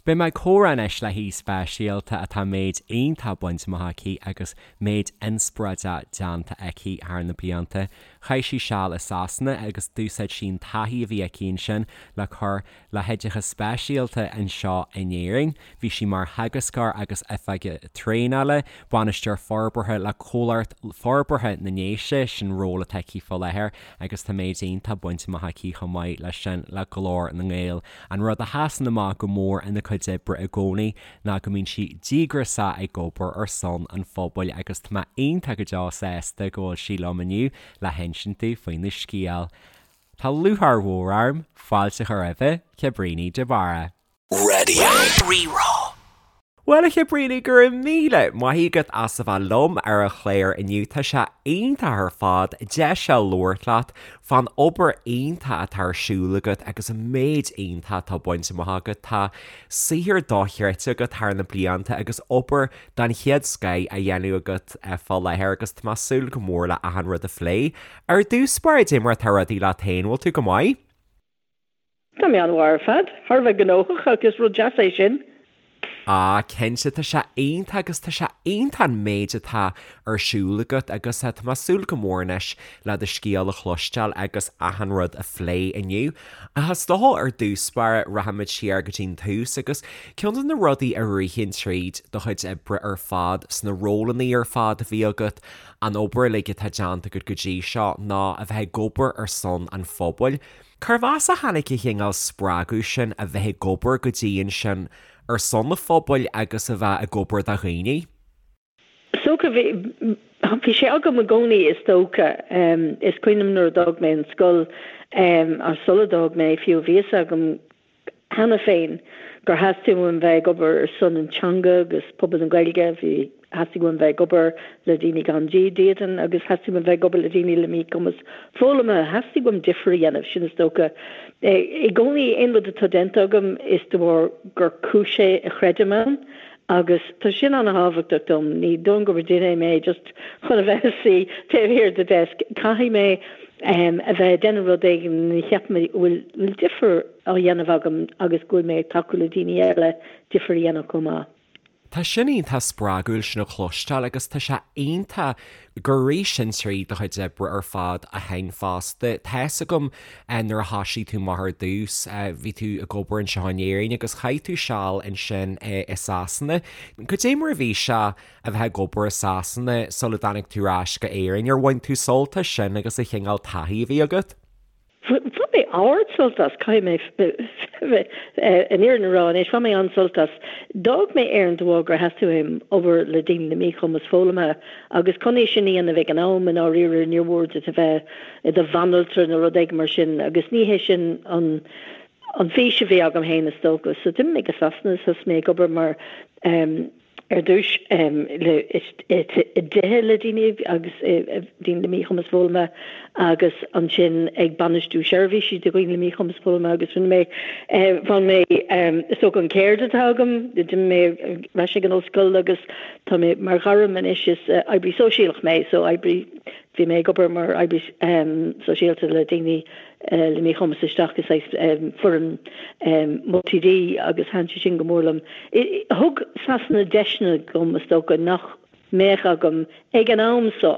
Beidh mé ag comhrá anois le haoi speisialta atá méid iontach bainte amach aici agus méid inspioráideach déanta aici thar na blianta. Chaith sí seal i Sasana agus d'úsáid sí an taithí a bhí aici ansin le cur le hoideachas speisialta anseo in Éirinn. Bhí sí mar theagascóir agus oifigeach traenála, bainisteoir forbartha le Comhlacht Forbartha na nDéise, sin ról atá aici faoi láthair agus tá méid iontach bainte amach aici chomh maith leis sin le Glór na nGael. An rud a sheasann amach go mór ina cuid oibre i gcónaí ná go mbíonn sí díograiseach ag obair ar son an phobail agus tá mé iontach go deo sásta go bhfuil sí liom inniu le hinsint domh faoina scéal. Tá lúcháir mhór orm fáilte a chur roimh Cabríní de Barra. Raidió Rí-Rá. Bhuel, a Chabríní, go raibh míle maith agat as a bheith liom ar an chlár inniu. Tá sé iontach ar fad deis a labhairt leat fán obair iontach atá ar siúl agat agus an méid iontach atá bainte amach agat. Tá saothar dochreidte agat thar na blianta agus obair den chéad scoith á dhéanamh agat fá láthair agus tá mé ag súil go mór le achan rud a phlé. Ar dtús báire, cad é mar atá rudaí leat féin, bhfuil tú go maith? Tá mé an-mhaith ar fad. Thar a bheith gnóthach ach is rud deas é sin. Ah, cinnte, tá sé iontach agus tá sé iontach an méid atá ar siúl agat agus tá mé ag súil go mór anois le do scéal a chloisteáil agus achan rud a phlé inniu. Ach is dócha ar dtús báire rachaimid siar go dtí'n tús agus ceann de na rudaí a ritheann tríd do chuid oibre ar fad, sna rólanna ar fad a bhí agat, an obair uilig atá déanta agat go dtí seo ná a bheith ag obair ar son an phobail. Cérbh as a tháinig an cineál spreagadh sin a bheith ag obair go dian sin ar son an phobail agus a bheith ag obair do dhaoine? Is dócha, bhí, bhí sé agam i gcónaí is dócha. Is cuimhin liom nuair a d'fhág mé an scoil, or sula d'fhág mé fiú, bhí fhios agam cheana féin gur theastaigh uaim bheith ag obair ar son an teanga agus pobal na Gaeilge, bhí, theastaigh uaim bheith ag obair le daoine gan dídean agus theastaigh uaim bheith ag obair le daoine le míchumas foghlama, theastaigh uaim difear a dhéanamh, sin is dócha. I gcónaí aon rud atá déanta agam is de bharr gur cúis é a chreidim ann agus tá sin an-thábhachtach dom, ní dóigh gur duine mé just chun a bheith ag suí taobh thiar de desk, caithfidh mé a bheith ag déanamh rud éigin a cheapaim go bhfuil difear á dhéanamh agam agus go bhfuil mé ag tacú le daoine eile difear a dhéanamh chomh maith. Tá sin iontach spreagúil sin a chloisteáil agus tá sé iontach gur rith sin trí do chuid oibre ar fad ó shin fosta. Tá's agam nuair a thoisigh tú amach ar dtús, bhí tú ag obair anseo in Éirinn agus chaith tú seal ansin i Sasana. Cad é mar a bhí sé a bheith ag obair i Sasana sula dtáinig tú ar ais go Éirinn? Ar bhain tú sult as sin agus an chineál taithí a bhí agat? Bhain mé ard-sult as, caithfidh mé an fhírinne a rá anois, bhain mé an-sult as. D'fhág mé Éirinn de bharr gur theastaigh uaim obair le daoine le míchumas foghlamtha agus chun é sin a dhéanamh ag an am i ndáiríre níor mhór duit a bheith i do bhanaltra nó rud éigin mar sin agus ní hé sin an an fhís a bhí agam féin is dócha. So d'imigh mé go Sasana is thosaigh mé ag obair mar ar dtús i dtithe le daoine agus daoine le míchumas foghlama agus ansin ag bainistiú seirbhísí do dhaoine le míchumas foghlama agus rinne mé, bhain mé, is dócha an ceird atá agam, d'imigh mé ar ais ag an ollscoil agus tá mé mar ghairm anois is oibrí sóisialach mé so oibrí, bhí mé ag obair mar oibrí sóisialta le daoine le míchumas isteach i saghas foireann multi-D agus thaitin sé sin go mór liom. Thug Sasana deiseanna dom is dócha nach mbeadh agam ag an am so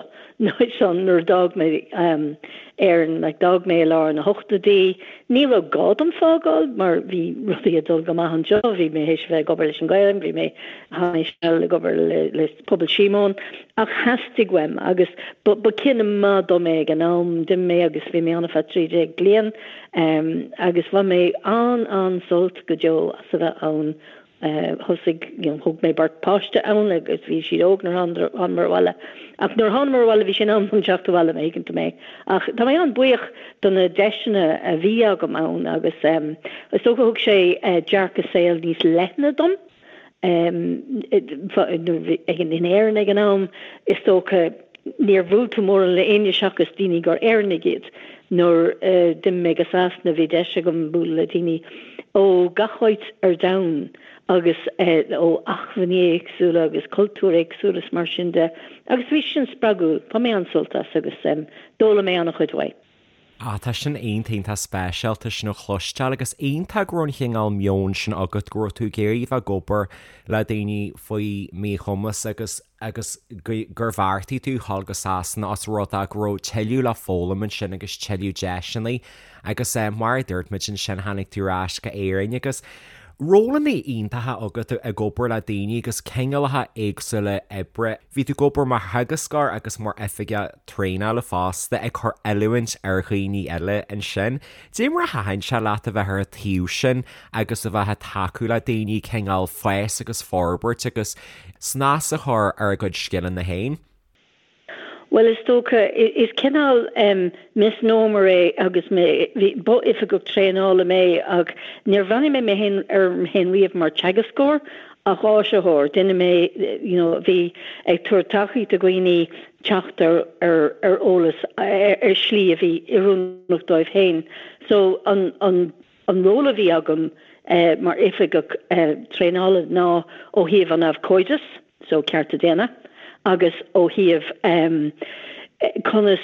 san nuair a d'fhág mé Éirinn. Like d'fhág mé i lár na hochtóidí. Ní raibh gá dom fágáil mar bhí rudaí ag dul go maith anseo. Bhí mé théis a bheith ag obair leis an Ghaelainn, bhí mé chaith mé seal ag obair le Pobal Síomóin ach theastaigh uaim agus ba cinneadh maith dom é ag an am. D'imigh mé agus bhí mé ann ar feadh 13 bliain agus bhain mé an-an-sult go deo as a bheith ann. Thosaigh, you know, thóg mé beirt páiste ann agus bhí siad óg nuair a thánamar abhaile. Ach nuair a thánamar abhaile bhí sé in am dom teacht abhaile má thuigeann tú mé. Ach tá mé an-buíoch do na deiseanna a bhí agam ann agus is dócha thug sé dearcadh saoil níos leithne dom. In Éirinn ag an am, is dócha, níor bhuail tú mórán le éinne seachas daoine gur Éireannaigh iad. Nuair a d'imigh mé go Sasana bhí deis agam bualadh le daoine ó gach áit ar domhan agus ó acmhainní éagsúla agus cultúir éagsúla is mar sin de agus bhí sin spreagúil. Bhain mé an-sult as agus d'fhoghlaim mé an-chuid uaidh. Ah, tá sin iontach, iontach speisialta sin a chloisteáil agus iontach go raibh an chineál meoin sin agat, go raibh tú ag iarraidh bheith ag obair le daoine faoi mhíchumas agus agus gur bheartaigh tú dhul go Sasana os rud é go raibh tuilleadh le foghlaim ansin agus tuilleadh deiseanna agus mar a dúirt muid ansin tháinig tú ar ais go Éirinn agus rólanna iontacha agat ag obair le daoine agus cineálacha éagsúla oibre. Bhí tú ag obair mar theagascóir agus mar oifigeach traenála fosta, ag cur oiliúint ar dhaoine eile ansin. Dé mar a thaitin sé leat a bheith ar an taobh sin agus a bheith ag tacú le daoine cineál fás agus forbairt agus snas a chur ar a gcuid scileanna féin? Bhuel, is dócha, is cineál misnomer é agus mé, bhí, ba oifigeach traenála mé ach níor bhreathnaigh mé mé féin orm féin riamh mar teagascóir ach áisitheoir, duine mé, you know, a bhí ag tabhairt tacaíocht do dhaoine teacht ar ar ar eolas ar shlí a bhí oiriúnach dóibh féin. So an an an ról a bhí agam mar oifigeach traenála ná ó thaobh an abhcóideas, so cearta daonna, agus ó thaobh conas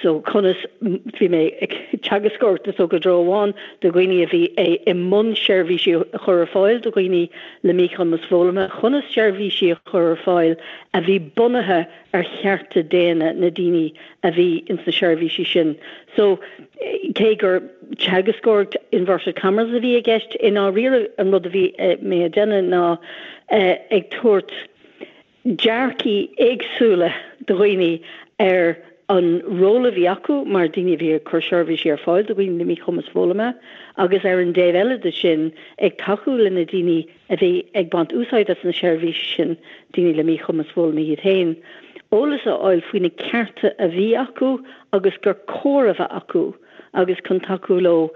so conas bhí mé ag teagascóireacht is dócha i dtreo amháin do dhaoine a bhí i mbun seirbhísí a chur ar fáil do dhaoine le míchumas foghlama, conas seirbhísí a chur ar fáil a bhí bunaithe ar chearta daonna na daoine a bhí ins na seirbhísí sin. So cé gur teagascóireacht inverted commas a bhí i gceist, i ndáiríre an rud a bhí mé a déanamh ná ag tabhairt dearcaí éagsúla do dhaoine ar an ról a bhí acu mar daoine a bhí ag cur seirbhísí ar fáil do dhaoine le míchumas foghlama agus ar an dtaobh eile de sin ag tacú le na daoine a bhí ag baint úsáid as na seirbhísí sin, daoine le míchumas foghlama iad féin, eolas a fháil faoi na cearta a bhí acu agus gur cóir a bheith acu agus chun tacú leo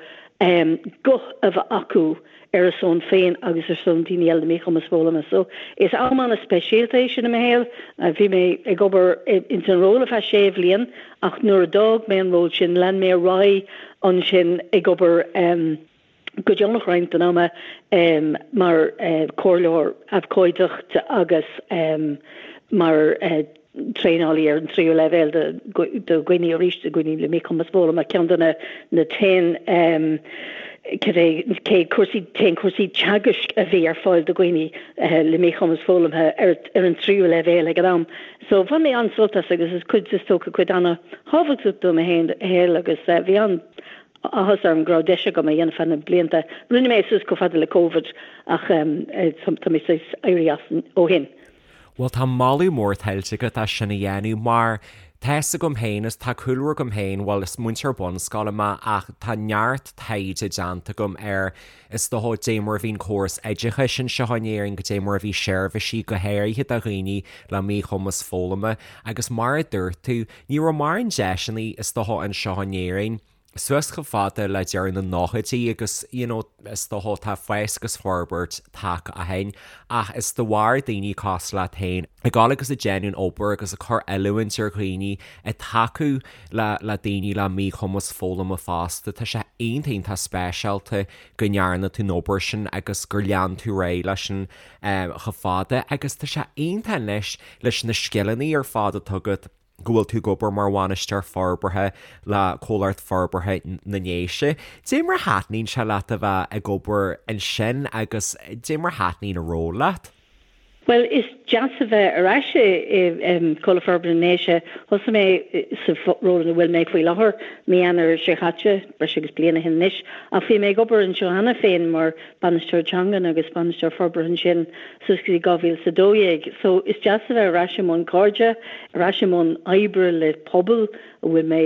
guth a bheith acu ar a son féin agus ar son daoine eile le míchumas foghlama. So, is am an-speisialta é sin i mo shaol. Bhí mé ag obair ins an ról ar feadh sé bhliain ach nuair a d'fhág mé an ról sin, lean mé ar aghaidh ansin ag obair go deonach roinnt den ama mar chomhairleoir abhcóideachta agus mar traenálaí ar an tríú leibhéal do dhaoine arís, do dhaoine le míchumas foghlama, ceann de na t-aon cibé cé cúrsaí t-aon cúrsaí teagaisc a bhí ar fáil do dhaoine le míchumas foghlamtha ar ar an tríú leibhéal ag an am. So bhain mé an-sult as agus is cuid is dócha cuid an-thábhachtach de mo shaol agus bhí an áthas orm go raibh deis agam é a dhéanamh feadh na blianta. Rinne mé é suas chomh fada le Covid ach tá mé saghas éirithe as ó shin. Bhuel tá moladh mór tuillte agat as sin a dhéanamh mar tá fhios agam féin is tá cúlra agam féin, bhuel is múinteoir bunscoile mé ach tá neart taighde déanta agam ar is dócha dé mar a bhí an córas oideachais anseo in Éirinn, goidé mar a bhí seirbhísí go háirithe do dhaoine le míchumas foghlama agus mar a dúirt tú, ní raibh mórán deiseanna is dócha anseo in Éirinn. suas chomh fada le deireadh na nóchaidí agus you know is dócha tá fás agus forbairt tagtha ó shin ach is de bharr daoine cosúil leat féin ag dul agus ag déanamh an obair agus ag cur oiliúint ar dhaoine ag tacú le le daoine le míchumas foghlama fosta tá sé iontach iontach speisialta go ndearna tú an obair sin agus gur lean tú ar aghaidh leis sin chomh fada agus tá sé iontach anois leis na scileanna ar fad atá agat go bhfuil tú ag obair mar bhainisteoir forbartha le Comhlacht Forbartha na nDéise. Dé mar a thaitníonn sé leat a bheith ag obair ansin agus dé mar a thaitníonn an ról leat? Bhuel, is deas a bheith ar ais i Comhlacht Forbartha na nDéise. Thosaigh mé sa ról ina bhfuil mé faoi láthair mí Eanáir seo caite, breis agus bliain ó shin anois, ach bhí mé ag obair anseo cheana féin mar Bainisteoir Teangan agus Bainisteoir Forbartha ansin suas go dtí 2012. So is deas a bheith ar ais i mbun cairde, ar ais i mbun oibre le pobal a bhfuil mé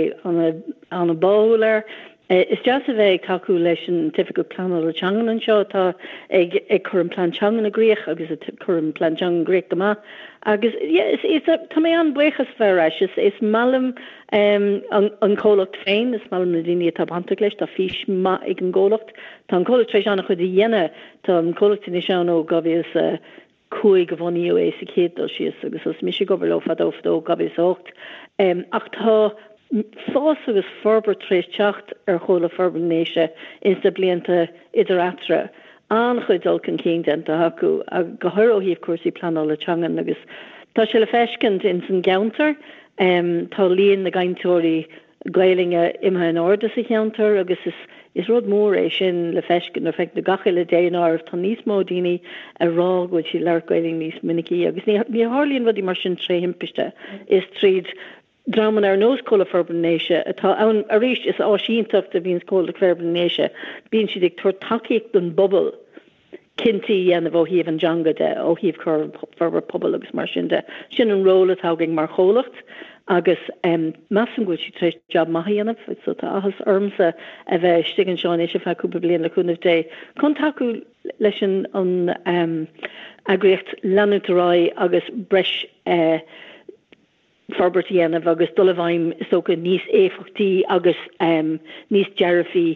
an-bháúil air. Is deas a bheith ag tacú leis an tOifigeach Pleanála Teangan anseo atá ag ag cur an plean teangan i gcrích agus ag cur an plean teangan i gcrích go maith. Agus yeah, is, is, tá mé an-bhuíoch as bheith ar ais. Is, is maith liom an, an comhlacht féin, is maith liom na daoine atá bainteach leis, tá fís maith ag an gcomhlacht. Tá an comhlacht tar éis an-chuid a dhéanamh. Tá an comhlacht anois ann ó 2005 a bunaíodh é sa chéad dul síos agus thosaigh mise ag obair leo fadó fadó, 2008. Ach tá fás agus forbairt tar éis teacht ar Chomhlacht Forbartha na nDéise ins na blianta idir eatarthu. An-chuid dul chun cinn déanta acu, go háirithe ó thaobh cúrsaí pleanála teangan agus tá sé le feiscint ins an gceantar. Tá líon na gcainteoirí. Gaelainne imithe in airde sa cheantar agus is is rud mór é sin le feiscint nuair a feiceann tú gach uile daonáireamh tá níos mó daoine ag rá go bhfuil siad ag labhairt Gaelainne níos minicí agus ní ní tharlaíonn rudaí mar sin tré thimpiste is tríd dreamanna ar nós Comhlucht Forbartha na nDéise atá ann arís is áis iontach a bhíonn Comhlucht Forbartha na nDéise bíonn siad ag tabhairt tacaíocht don bpobal cinntí a dhéanamh ó thaobh an teanga de, ó thaobh cur forbairt pobail agus mar sin de. Sin an ról atá againn mar chomhlacht agus measaim go bhfuil siad tar éis jab maith a dhéanamh so tá áthas ormsa a bheith istigh anseo anois ar feadh cúpla bliain le cúnamh Dé chun tacú leis an an eagraíocht leanúint ar aghaidh agus breis forbairt a dhéanamh agus dul i bhfeidhm is dócha níos éifeachtaí agus níos dearfaí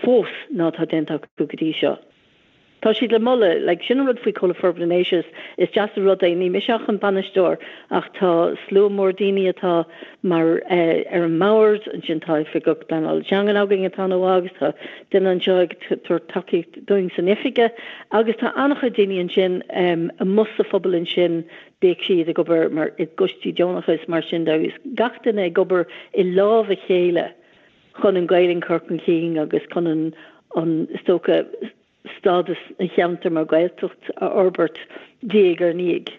fós ná atá déanta acu go dtí seo. Tá siad le moladh, like, sin an rud faoi Comhlucht Forbartha na nDéise, is deas an rud é, ní mise ach an bainisteoir ach tá slua mór daoine atá mar ar an mbord, ansin tá oifigeach pleanála teangan againn atá ana mhaith agus tá duine anseo ag tabhairt tacaíocht dúinn san oifig agus tá an-chuid daoine ansin amuigh sa phobal ansin Bíodh siad ag obair mar i gcoistí deonacha is mar sin de agus gach duine ag obair i lámh a chéile chun an Ghaelainn a chur chun cinn agus chun an, an, is dócha, stádas an cheantair mar Ghaeltacht a fhorbairt diaidh ar ndiaidh.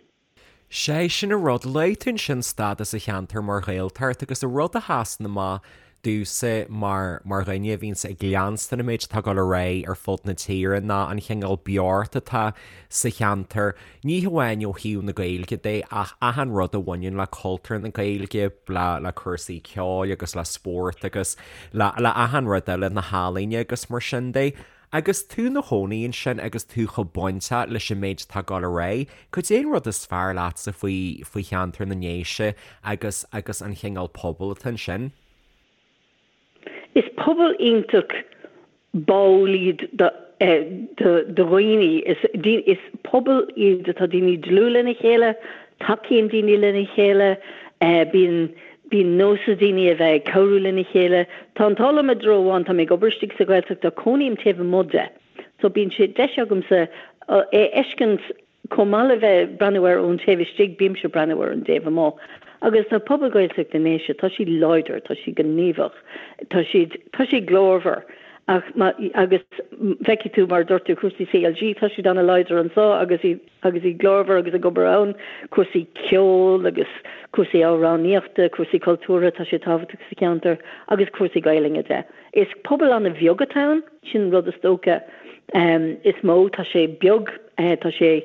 Sé sin an rud, luaigh tú ansin stádas an cheantair mar Ghaeltacht agus an rud a sheasann amach domhsa mar mar dhuine a bhíonns ag leanstan an méid atá ag dul ar aghaidh ar fud na tíre ná an chineál beocht atá sa cheantar, ní hamháin ó thaobh na Gaeilge de ach achan rud a bhaineann le cultúr na Gaeilge, le le cúrsaí ceoil agus le spórt agus le le achan rud eile, na healaíona agus mar sin de. Agus tú 'na chónaí ansin agus tú chomh bainteach leis an méid atá ag dul ar aghaidh, cad é an rud is fearr leatsa faoi faoi cheantar na nDéise agus agus an chineál pobail atá ansin? Is pobal iontach báúil iad do do do dhaoine. Is is pobal iad atá daoine dlúth lena chéile, tacaíonn daoine lena chéile, bíonn Bíonn nós ag daoine a bheith ag cabhrú lena chéile. Tá an t-ádh liom i dtreo amháin, tá mé ag obair istigh sa Ghaeltacht ach cónaím taobh amuigh de. So bíonn sé deis agamsa é a fheiscint chomh maith le bheith ag breathnú air ón taobh istigh, bímse ag breathnú ar an dtaobh amuigh. Agus tá pobal Gaeltacht na nDéise, tá siad láidir, tá siad gníomhach, tá siad, tá siad glórmhar. Ach má, agus feicfidh tú mar a dúirt tú cúrsaí CLG, tá siad ana-láidir anseo agus iad, agus iad glórmhar agus ag obair ann, cúrsaí ceoil agus cúrsaí amhránaíochta, cúrsaí cultúrtha, tá sé tábhachtach sa cheantar, agus cúrsaí Gaelainne de. Is pobal an-bheag atá ann, sin an rud is dócha is mó, tá sé beag, tá sé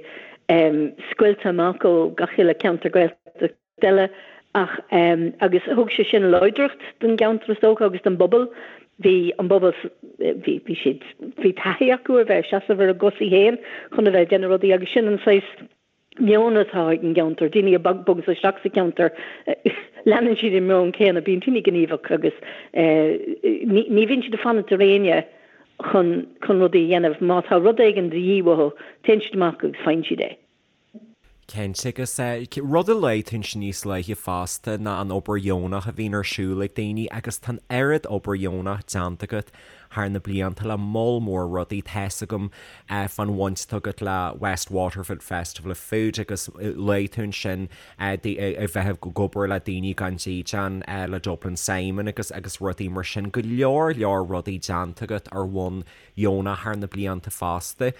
scoilte amach ó gach uile ceantar Gaeltachta. eile ach agus thug sé sin láidreacht don gceantar is dócha agus don bpobal. Bhí an bpobal bhí bhí siad bhí taithí acu ar bheith ag seasamh ar a gcosaí féin chun a bheith ag déanamh rudaí agus sin an saghas meon atá ag an gceantar. Daoine a bhogas isteach sa cheantar leanann siad an meon céanna, bíonn daoine gníomhach agus ní ní bhíonn siad ag fanacht ar éinne chun chun rudaí a dhéanamh. Má tá rud éigin de dhíth uathu, téann siad amach agus faigheann siad é. Cinnte, agus rud a luaigh tú ansin níos luaithe fosta ná an obair dheonach a bhíonn ar siúl ag daoine agus tá an oiread obair dheonach déanta agat thar na blianta le moll mór rudaí. Tá's agam fán bhaint atá agat le West Waterford Festival of Food agus luaigh tú ansin a bheith ag obair le daoine gan dídean le Dublin Simon agus agus rudaí mar sin. Go leor leor rudaí déanta agat ar bhonn dheonach thar na blianta fosta.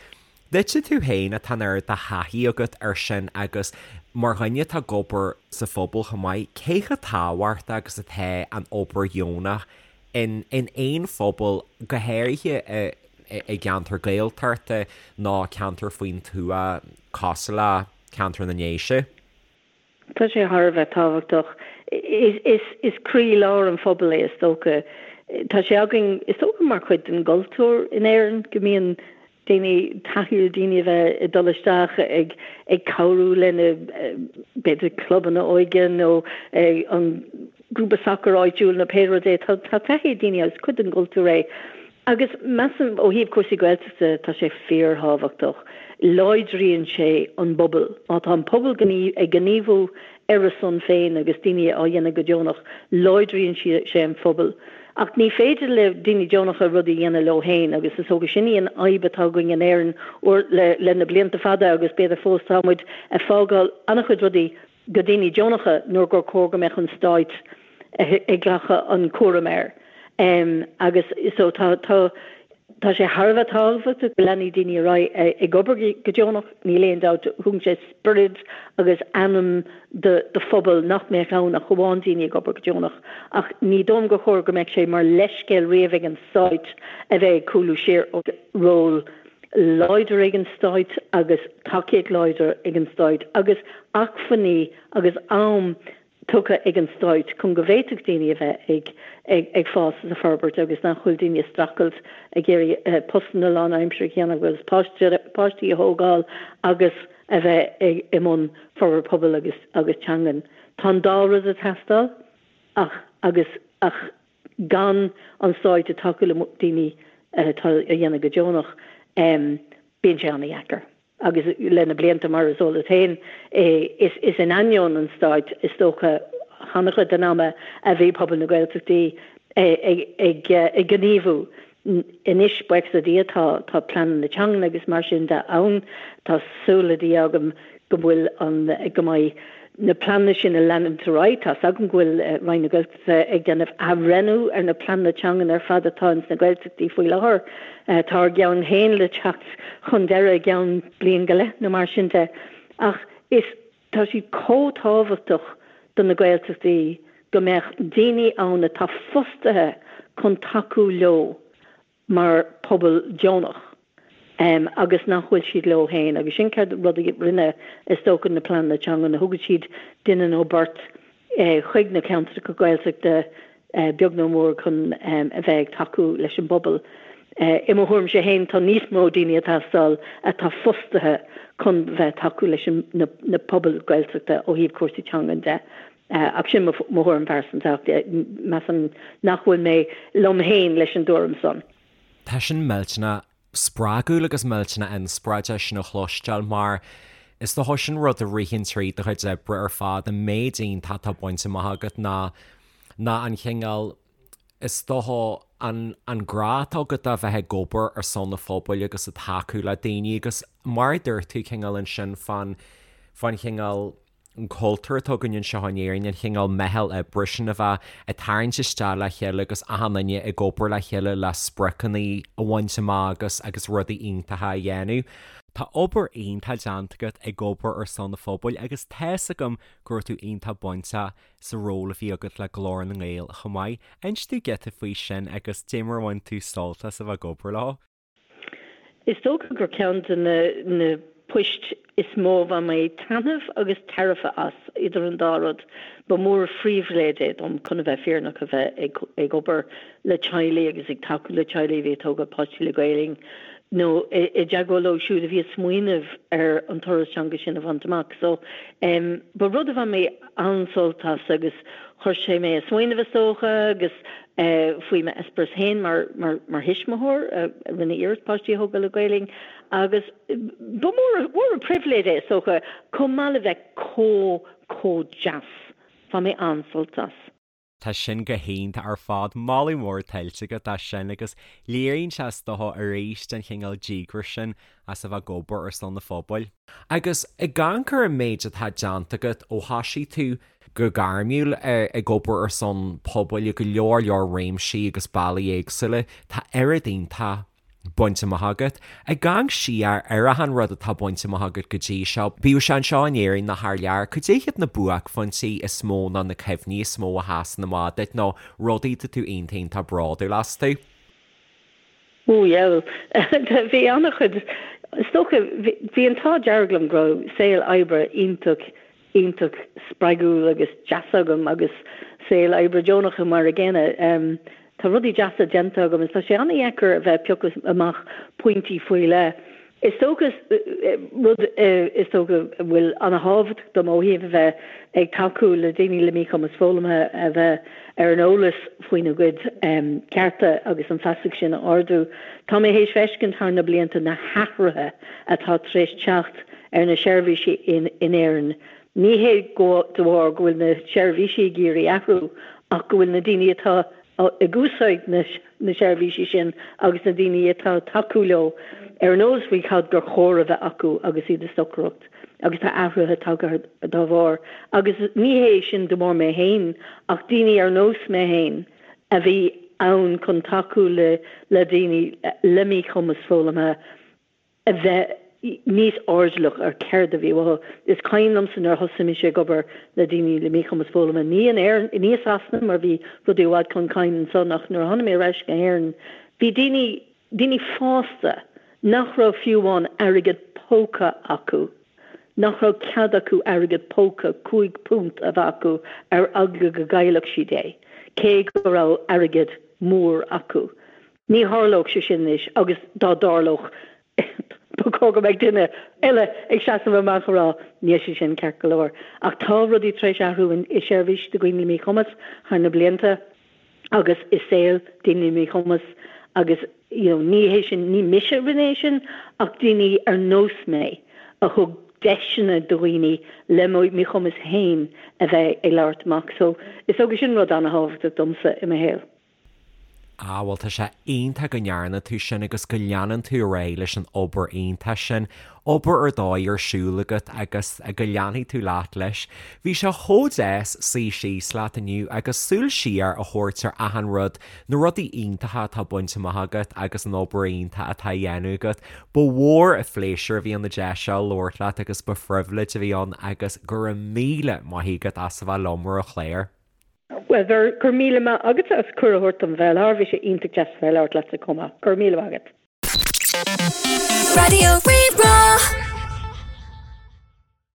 Duitse tú féin atá an oiread de thaithí agat air sin agus mar dhuine atá ag obair sa phobal chomh maith, cé chomh tábhachtach agus atá an obair dheonach in in aon phobal, go háirithe i i gceantar Gaeltachta nó ceantar faoin tuath cosúil le ceantar na nDéise? Tá sé thar a bheith tábhachtach. Is croílár an phobail é is dócha. Tá sé againn, is dócha mar chuid den gcultúr in Éirinn go mbíonn daoine, taithí ar daoine a bheith ag dul isteach ag ag cabhrú lena b'fhéidir clubanna óige nó an grúpa sacair áitiúil nó pé rud é. Tá taithí ag daoine agus is cuid den gcultúr é. Agus measaim, ó thaobh cúrsaí Gaeltachta, tá sé fíorthábhachtach. Láidríonn sé an bpobal. Má tá an pobal ag gníomhú ar a son féin agus daoine á dhéanamh go deonach, láidríonn sé an phobal. Ach ní féidir le daoine deonacha rudaí a dhéanamh leo féin agus is dócha sin í an fhadhb atá againn in Éirinn le na blianta fada agus b'fhéidir fós tá muid ag fágáil an-chuid rudaí go daoine deonacha nuair gur chóir go mbeadh an stáit. ag glacadh an cúram air. Agus so tá, tá, tá sé thar a bheith tábhachtach go leanfaidh daoine ar aghaidh ag obair go deonach, níl aon dabht, thugann sé spiorad agus anam do do phobal nach mbeadh ann ach amháin daoine ag obair go deonach. Ach ní dóigh liom gur chóir go mbeadh sé mar leithscéal riamh ag an Stáit a bheith ag cúlú siar ó ról láidir ag an Stáit agus tacaíocht láidir ag an Stáit agus acmhainní agus am tugtha ag an Stáit chun go bhféadfadh daoine a bheith ag ag fás is ag forbairt agus nach bhfuil daoine ag streachailt ag iarraidh postanna lánaimseartha a dhéanamh agus páistí a thógáil agus a bheith ag i mbun forbairt pobail agus agus teangan. Tá an dá rud ag teastáil ach agus ach gan an Stáit ag tacú le daoine atá a dhéanamh go deonach bíonn sé an-dheacair. Agus le na blianta, mar is eol duit féin, is in ainneoin an stáit, is dócha, an-chuid den ama a bhí pobal na Gaeltachtaí ag gníomhú. Anois, buíochas le Dia, tá tá pleananna teangan agus mar sin de ann. Tá súil le Dia agam go bhfuil an, go mbeidh na pleananna sin ag leanúint ar aghaidh. Tá's agam go bhfuil Roinn na Gaeltachta ag déanamh athbhreithniú ar na pleananna teangan ar fad atá ins na Gaeltachtaí faoi láthair. Tá ár gceann féin le teacht chun deireadh i gceann bliain go leith nó mar sin de. Ach is, tá siad chomh tábhachtach do na Gaeltachtaí go mbeadh daoine ann atá fostaithe chun tacú leo mar pobal deonach agus nach bhfuil siad leo féin agus sin céard rud a rinne is dócha na pleananna teangan, thugadh siad duine nó beirt chuig na ceantracha Gaeltachta beag nó mór chun a bheith ag tacú leis an bpobal. I mo thuairimse féin tá níos mó daoine ag teastáil atá fostaithe chun bheith ag tacú leis na pobail Gaeltachta ó thaobh cúrsaí teangan de. Ach sin mo thuairim phearsanta ach measaim nach bhfuil mé liom féin leis an dtuairim san. Tá sin millteanach spreagúil agus millteanach inspioráideach sin a chloisteáil mar is dócha sin rud a ritheann tríd do chuid oibre ar fad, an méid iontach atá bainte amach agat ná ná an chineál is dócha an an grá atá agat a bheith ag obair ar son an phobail agus ag tacú le daoine agus mar a dúirt tú cineál ansin fán fán chineál an cultúr atá againn anseo in Éirinn, an chineál meitheal oibre sin a bheith ag tarraingt isteach le chéile agus achan duine ag obair le chéile le spriocanna a bhaint amach agus agus rudaí iontacha a dhéanamh. Tá obair iontach déanta agat ag obair ar son an phobail agus tá's agam go raibh tú iontach bainteach sa ról a bhí agat le Glór na nGael chomh maith. Inis dúinn giota faoi sin agus dé mar a bhain tú sult as a bheith ag obair leo. Is dócha gur ceann de na poist is mó a bhain mé taitneamh agus tairbhe as, idir an dá rud. Ba mhór an phribhléid é dom, chun a bheith fírinneach, a bheith ag obair le teaghlaigh agus ag tacú le teaghlaigh a bhí ag tógáil páistí le Gaelainn nó i dteagmháil leo siúd a bhí ag smaoineamh ar an turas teanga sin a bhaint amach. So, ba rud a bhain mé an-sult as agus chuir sé mé ag smaoineamh is dócha agus faoi m'eispéireas féin mar mar thuismitheoir a rinne iarracht páistí a thógáil le Gaelainn agus ba mhór mhór an pribhléid é is dócha chomh maith le bheith chomh chomh deas. Bhain mé an-sult as. Tá sin go hiontach ar fad. Moladh mór tuillte agat as sin agus léiríonn sé is dócha arís an chineál díograis sin as a bheith ag obair ar son an phobail. Agus ag amharc ar an méid atá déanta agat ó thoisigh tú go gairmiúil ag obair ar son pobail i go leor leor réimsí agus bealaí éagsúla, tá oiread iontach bainte amach agat. Ag amharc siar ar achan rud atá bainte amach agat go dtí seo, bíodh sé anseo in Éirinn nó thar lear, cad é hiad na buaicphointí is mó nó na cuimhní is mó a sheasann amach duit nó rudaí atá tú iontach iontach bródúil astu? Ó dheabhail. Bhí an-chuid, is dócha, bhí an t-ádh dearg liom go raibh saol oibre iontach, iontach spreagúil agus deas agam agus saol oibre deonach mar a gcéanna. Tá rudaí deasa déanta agam agus tá sé an-dheacair a bheith ag piocadh amach pointí faoi leith. Is dócha, rud is dócha a bhfuil an-thábhachtach dom ó thaobh a bheith ag tacú le daoine le míchumas foghlamtha a bheith ar an eolas faoina gcuid cearta agus an feasacht sin a ardú. Tá mé théis feiscint thar na blianta na hathruithe atá tar éis teacht ar na seirbhísí in Éirinn. Ní hé de bharr go bhfuil na seirbhísí ag iarraidh athrú ach go bhfuil na daoine atá ag úsáid na na seirbhísí sin agus na daoine atá ag tacú leo ar an eolas faoi cad gur chóir a bheith acu agus iad ag stocaireacht. agus tá athruithe tagtha dá bharr. Agus ní hé sin de bharr mé féin ach daoine ar nós mé féin a bhí ann chun tacú le le daoine le míchumas foghlamtha a bheith níos airdeallach ar céard a bhí uathu. Is cuimhin liomsa nuair a thosaigh mise ag obair le daoine le míchumas foghlamtha, ní in Éirinn, ní i Sasana mar bhí rudaí i bhfad chun cinn ansan ach nuair a tháinig mé ar ais go hÉirinn bhí daoine, daoine fásta nach raibh fiú amháin airgead póca acu, nach raibh cead acu airgead póca, £5 a bheith acu ar eagla go gcaillfeadh siad é, cé go raibh airgead mór acu. Ní tharlódh sé sin anois agus dá dtarlódh ba chóir go mbeadh duine eile ag seasamh amach a rá níl sé sin ceart go leor. Ach tá rudaí tar éis athrú i seirbhís do dhaoine le míchumas thar na blianta agus i saol daoine le míchumas agus you know ní hé sin, ní mise a rinne é sin ach daoine ar nós mé a thug deiseanna do dhaoine le míchumas féin a bheith ag labhairt amach. So is dócha sin rud an-thábhachtach domsa i mo shaol. Ah, bhuel tá sé iontach go ndearna tú sin agus go leanann tú ar aghaidh leis an obair iontach sin, obair ar dóigh ar siúl agat agus go leanfaidh tú leat leis. Bhí sé chomh deas suí síos leat inniu agus súil siar a thabhairt ar achan rud, na rudaí iontacha atá bainte amach agat agus an obair iontach atá á dhéanamh agat. Ba mhór an phléisiúr a bhí ann an deis seo labhairt leat agus ba phribhléid a bhí ann agus go raibh míle maith agat as a bheith liom ar an chlár. Bhuel, go raibh míle maith agatsa as cuireadh a thabhairt dom bheith i láthair. Bhí sé iontach deas a bheith ag labhairt leatsa chomh maith. Go raibh míle maith agat. Raidió Rí-Rá.